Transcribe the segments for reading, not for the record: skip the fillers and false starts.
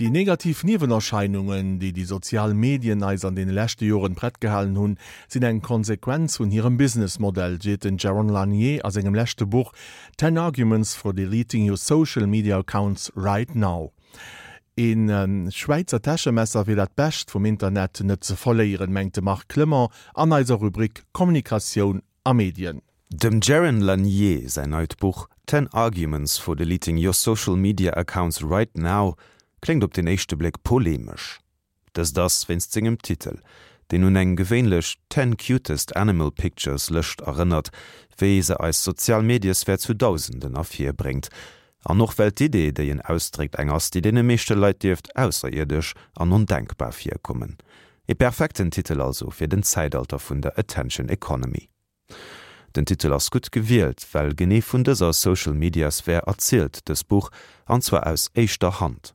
Déi negativ Niewenerscheinungen, déi déi sozial Medien eis an deene leschte Joren prett gehalen hunn, sinn eng Konsequenz vun hirem Businessmodell, seet den Jaron Lanier a sengem leschte Buch Ten Arguments for Deleting Your Social Media Accounts Right Now. Ee Schwäizer Täschemesser fir dat Bescht vum Internet net ze verléieren, mengt de Marc Clement an eiser Rubrik Kommunikatioun a Medien. Dem Jaron Lanier säin neit Buch Ten Arguments for Deleting Your Social Media Accounts Right Now kléngt op den éischte Bléck polemesch. Dëst ass wéinst sengem Titel, deen un eng gewéinlech Ten Cutest Animal Pictures Lëscht erënnert, wéi se eis sozial Mediesphär zu Dausenden ervirbréngt. An och well d'Idee, déi en ausdréckt, eng ass, déi deene meeschte Leit dierft ausserierdesch an ondenkbar virkommen. E perfekten Titel also fir den Zäitalter vun der Attention Economy. Den Titel ass gutt gewielt, well genee vun dëser Social Media Sphär erzielt dës Buch, an zwar aus éischter Hand.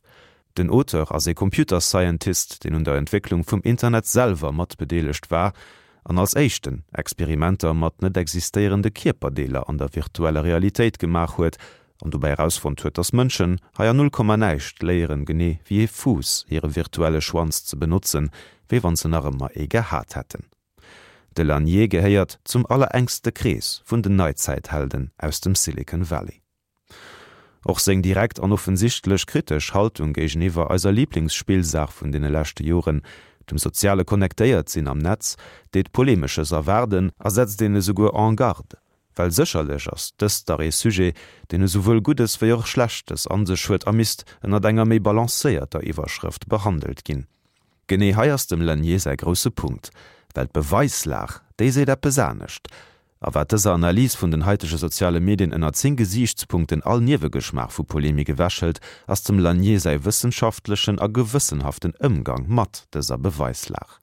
Den Auteur ass ee Computer Scientist, deen un der Entwécklung vum Internet selwer mat bedeelegt war an als éischten Experimenter mat net existéierende Kierperdeeler an der virtueller Realitéit gemaach huet an dobäi erausfonnt huet, dass Mënschen hei an null Komma näischt léieren, genee wéi ee Fuuss hire virtuelle Schwanz ze benotzen, wéi wann se nach ëmmer ee gehat hätten. De Lanier gehéiert zum allerenkste Krees vun den Neizäithelden aus dem Silicon Valley. Och seng direkt an offensichtlech kritesch Haltung géigeniwwer eiser Liblingsspillsaach vun deene leschte Joren, dem soziale Connectéiert-Sinn am Netz, deet Polemesches erwaarden a setzt een esouguer en garde. Well sécherlech ass dëst dach ee Sujet, deen esouwuel Guddes wéi och Schlechtes an sech huet a misst ënnert enger méi balancéierter Iwwerschrëft behandelt ginn. Genee hei ass dem Lanier säi grousse Punkt, well d'Beweislag, déi seet eppes anescht. A wat dëser Analys vun den haitege soziale Medien ënner 10 Gesiichtspunkten all Niewegeschmaach vu Polemik ewechhëlt, ass dem Lanier säi wëssenschaftlechen a gewëssenhaften Ëmgang mat dëser Beweislag.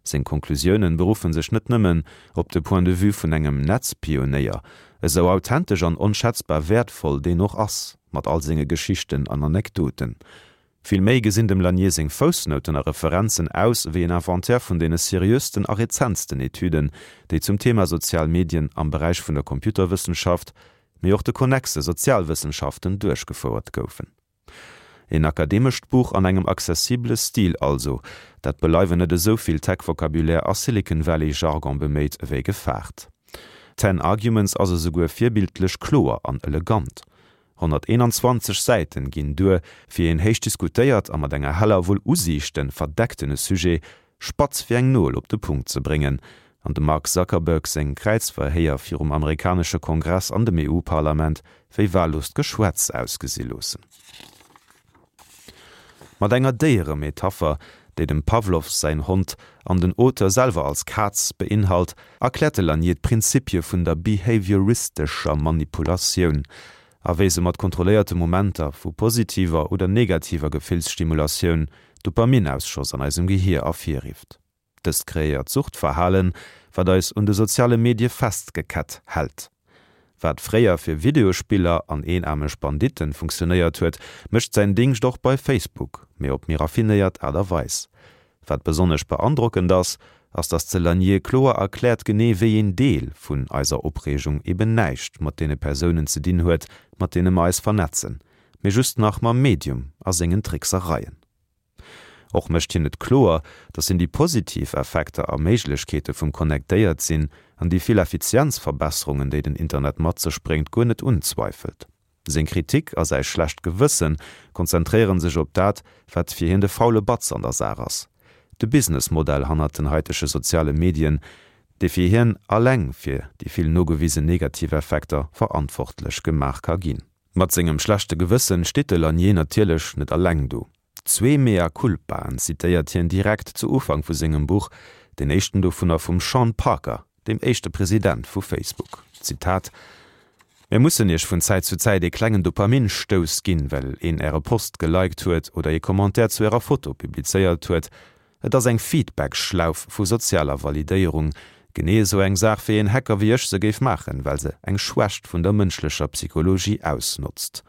Seng Konklusiounen beruffen sech net nëmmen op de Point de vue vun engem Netzpionéier, esou authentesch an onschätzbar wäertvoll deen och ass, mat all senge Geschichten an Anekdoten. Vill méi gesinn dem Lanier seng Foussnouten a Referenzen aus ewéi en Inventaire vun deene seriösten a rezentsten Etüden, déi zum Thema sozial Medien am Beräich vun der Computerwëssenschaft, mee och de konnexe Sozialwëssenschaften duerchgefouert goufen. Een akademescht Buch an engem accessibele Stil also, dat beleiwen net esou vill Tech-Vocabulaire a Silicon Valley-Jargon beméit ewéi gefaart. Ten Arguments ass esouguer virbildlech kloer an elegant. 121 Säiten ginn duer, fir een héich diskutéiert a mat enger heller Wull Usiichte verdecktene Sujet spatz wéi eng Nol op de Punkt ze bréngen an dem Mark Zuckerberg seng Kräizverhéier virum amerikanesche Kongress an dem EU-Parlament wéi wahlloost Geschwätz ausgesi loossen. Mat enger Déieremetapher, déi dem Pawlow säin Hond an den Auteur selwer als Kaz beinhalt, erkläert de Lanier d'Prinzipie vun der behavioristescher Manipulatioun a wéi se mat kontrolléierte Momenter vu positiver oder negativer Gefillsstimulatioun Dopaminausschoss an eisem Gehier ervirrifft. Dëst kreéiert Suchtverhalen, wat eis un de soziale Medie festgekett hält. Wat fréier fir Videospiller an eenaarmeg Banditten funktionéiert huet, mécht säin Dingscht och bei Facebook, mee op méi raffinéiert Aart a Weis. Wat besonnesch beandrockend ass, ass dass de Lanier kloer erkläert genee wéi een Deel vun eiser Opreegung eben näischt mat deene Persounen ze dinn huet, mat deene mer eis vernetzen, mee just nach mam Medium a sengen Tricksereien. Och mécht hien et kloer, datt hien déi positiv Effekter a Méiglechkeete vum Connectéiert-Sinn an déi vill Effizienzverbesserungen, déi den Internet mat sech bréngt, guer net unzweifelt. Seng Kritik a säi schlecht Gewësse konzentréiere sech op dat, wat fir hien de faule Batz an der Saach ass, de Businessmodell hannert den haitege soziale Medien, dee fir hien alleng fir déi vill nogewisen negativ Effekter verantwortlech gemaach ka ginn. Mat sengem schlechte Gewëssen steet de Lanier natierlech net alleng do. Zwee Mea culpaen zitéiert hien direkt zu Ufank vu sengem Buch, deen éischten dovunner vum Sean Parker, dem éischte President vu Facebook. Zitat, Mir mussen iech vun Zäit zu Zäit ee klengen Dopamin-Stouss ginn, well een äre Post geliked huet oder ee Commentaire zu ärer Foto publizéiert huet. Et ass eng Feedback-Schlauf vu sozialer Validéierung. Genee esou eng Saach, wéi een Hacker wéi ech se géif maachen, well se eng Schwächt vun der mënschlecher Psychologie ausnotzt.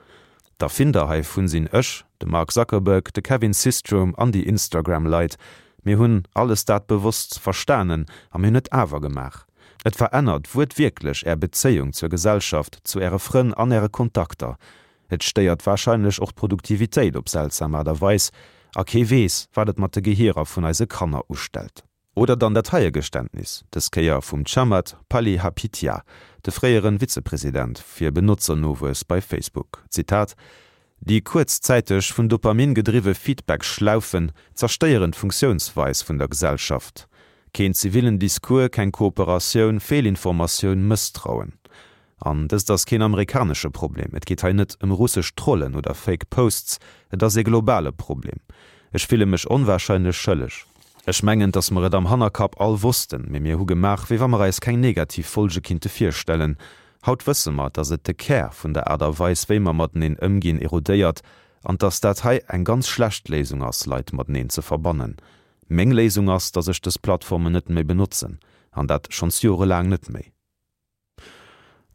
D'Erfinder heivun sinn ech, de Mark Zuckerberg, de Kevin Systrom an déi Instagram-Leit. Mir hunn alles dat bewosst verstanen a mir hunn et awer gemaach. Et verännert wuertwierklech Är Bezéiung zur Gesellschaft, zu Äre Frënn an Äre Kontakter. Et stéiert warscheinlech och d'Produktivitéit op seltsam Aart a Weis, a kee weess, wat et mat de Gehierer vun eise Kanner ustellt. Oder dann dat heie Geständnis, dës Kéier vum Chamath Palihapitiya, de fréiere Vizepresident fir Benotzernowuess bei Facebook, Zitat, Déi kuerzzäiteg vun Dopamin gedriwwe Feedback-Schlaufen zerstéieren d'Funktiounsweis vun der Gesellschaft. Keen zivillen Discours, keng Kooperatioun, Feelinformatioun, Mësstrauen. An dëst ass keen amerikanesche Problem, et geet hei net ëm russesch Trollen oder Fake Posts, et ass ee globale Problem. Ech fille mech onwahrscheinlech schëlleg. Ech mengen, dass mer et am Hannerkapp all wossten, mee mir hu gemaach, wéi wa mer eis keng negativ Folge kinnte virstellen. Haut wësse mer, dass et de Kär vun der Aart a Weis, wéi mer mateneen ëmginn, erodéiert an dass dat hei eng ganz schlecht Léisung ass, Leit mateneen ze verbannen. Meng Léisung ass, dass ech dës Plattformen net méi benotzen, an dat schonns jorelaang net méi.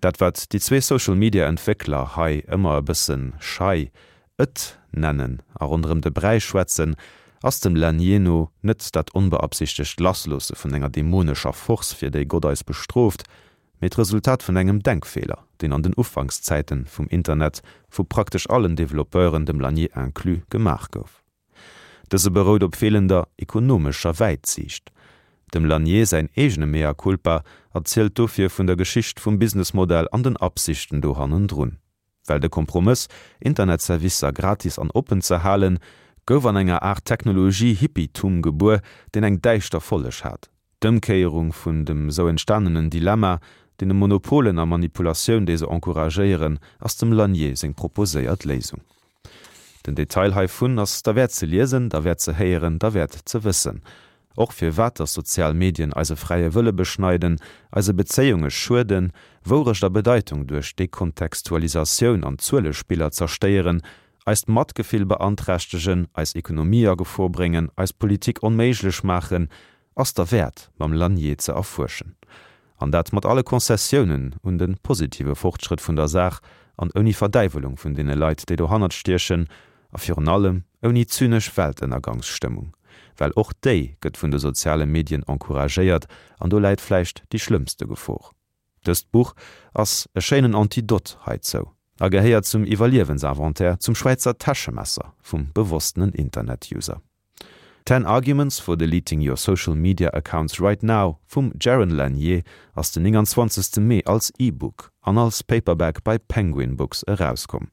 Dat wat déi zwee Social Media Entwéckler hei ëmmer e bëssen schei et nennen a ronderëm de Bräi schwätzen, ass dem Lanier no net dat onbeabsichtegt Lassloosse vun enger dämonescher Force fir déi Gott eis bestrooft, mee d'Resultat vun engem Denkfeeler, deen an den Ufankszäiten vum Internet vu praktesch allen Developpeuren, dem Lanier inclus, gemaach gouf. Dëse berout op feelender ekonomescher Wäitsiicht. Dem Lanier säin eegene Mea culpa erzielt dofir vun der Geschicht vum Businessmodell an den Absichten do hannendrun. Well de Kompromëss, Internetservicer gratis an oppen ze halen, gouf an enger Aart Technologie-Hippietum gebuer, deen eng däischter Folleg hat. D'Ëmkéierung vun dem sou entstanenen Dilemma, deene Monopolen a Manipulatioun, déi se encouragéieren, ass dem Lanier seng proposéiert Léisung. Den Detail heivun ass derwäert ze liesen, derwäert ze héieren, derwäert ze wëssen. Och firwat dass sozial Medien eise fräie Wëlle beschneiden, eise Bezéiunge schueden, Wourecht a Bedeitung duerch Dekontextualisatioun an Zuelespiller zerstéieren, eist Matgefill beanträchtegen, eis Ekonomie a Gefor bréngen, eis Politik onméiglech maachen, ass derwäert mam Lanier ze erfuerschen. An dat mat alle Concessiounen un de positive Fortschrëtt vun der Saach an ouni Verdäiwelung vun deene Leit, déi dohannert stiechen, a virun allem ouni zynesch Weltënnergangsstëmmung. Well och déi gëtt vun de soziale Medien encouragéiert an do läit vläicht déi schlëmmste Gefor. Dëst Buch ass e schéinen Antidot heizou a gehéiert zum Iwwerliewensinventaire, zum Schwäizer Täschemesser vum bewosstenen Internet-User. Ten Arguments for Deleting Your Social Media Accounts Right Now vum Jaron Lanier ass den 29. Mee als E-Book an als Paperback bei Penguin Books erauskomm.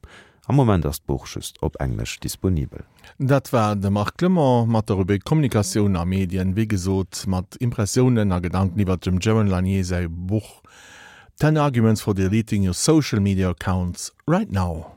Am Moment ass d'Buch just op Englesch disponibel. Dat war de Marc Clement mat der Rubrik Kommunikatioun a Medien, wéi gesot mat Impressiounen a Gedanken iwwert dem Jaron Lanier säi Buch Ten Arguments for Deleting Your Social Media Accounts Right Now.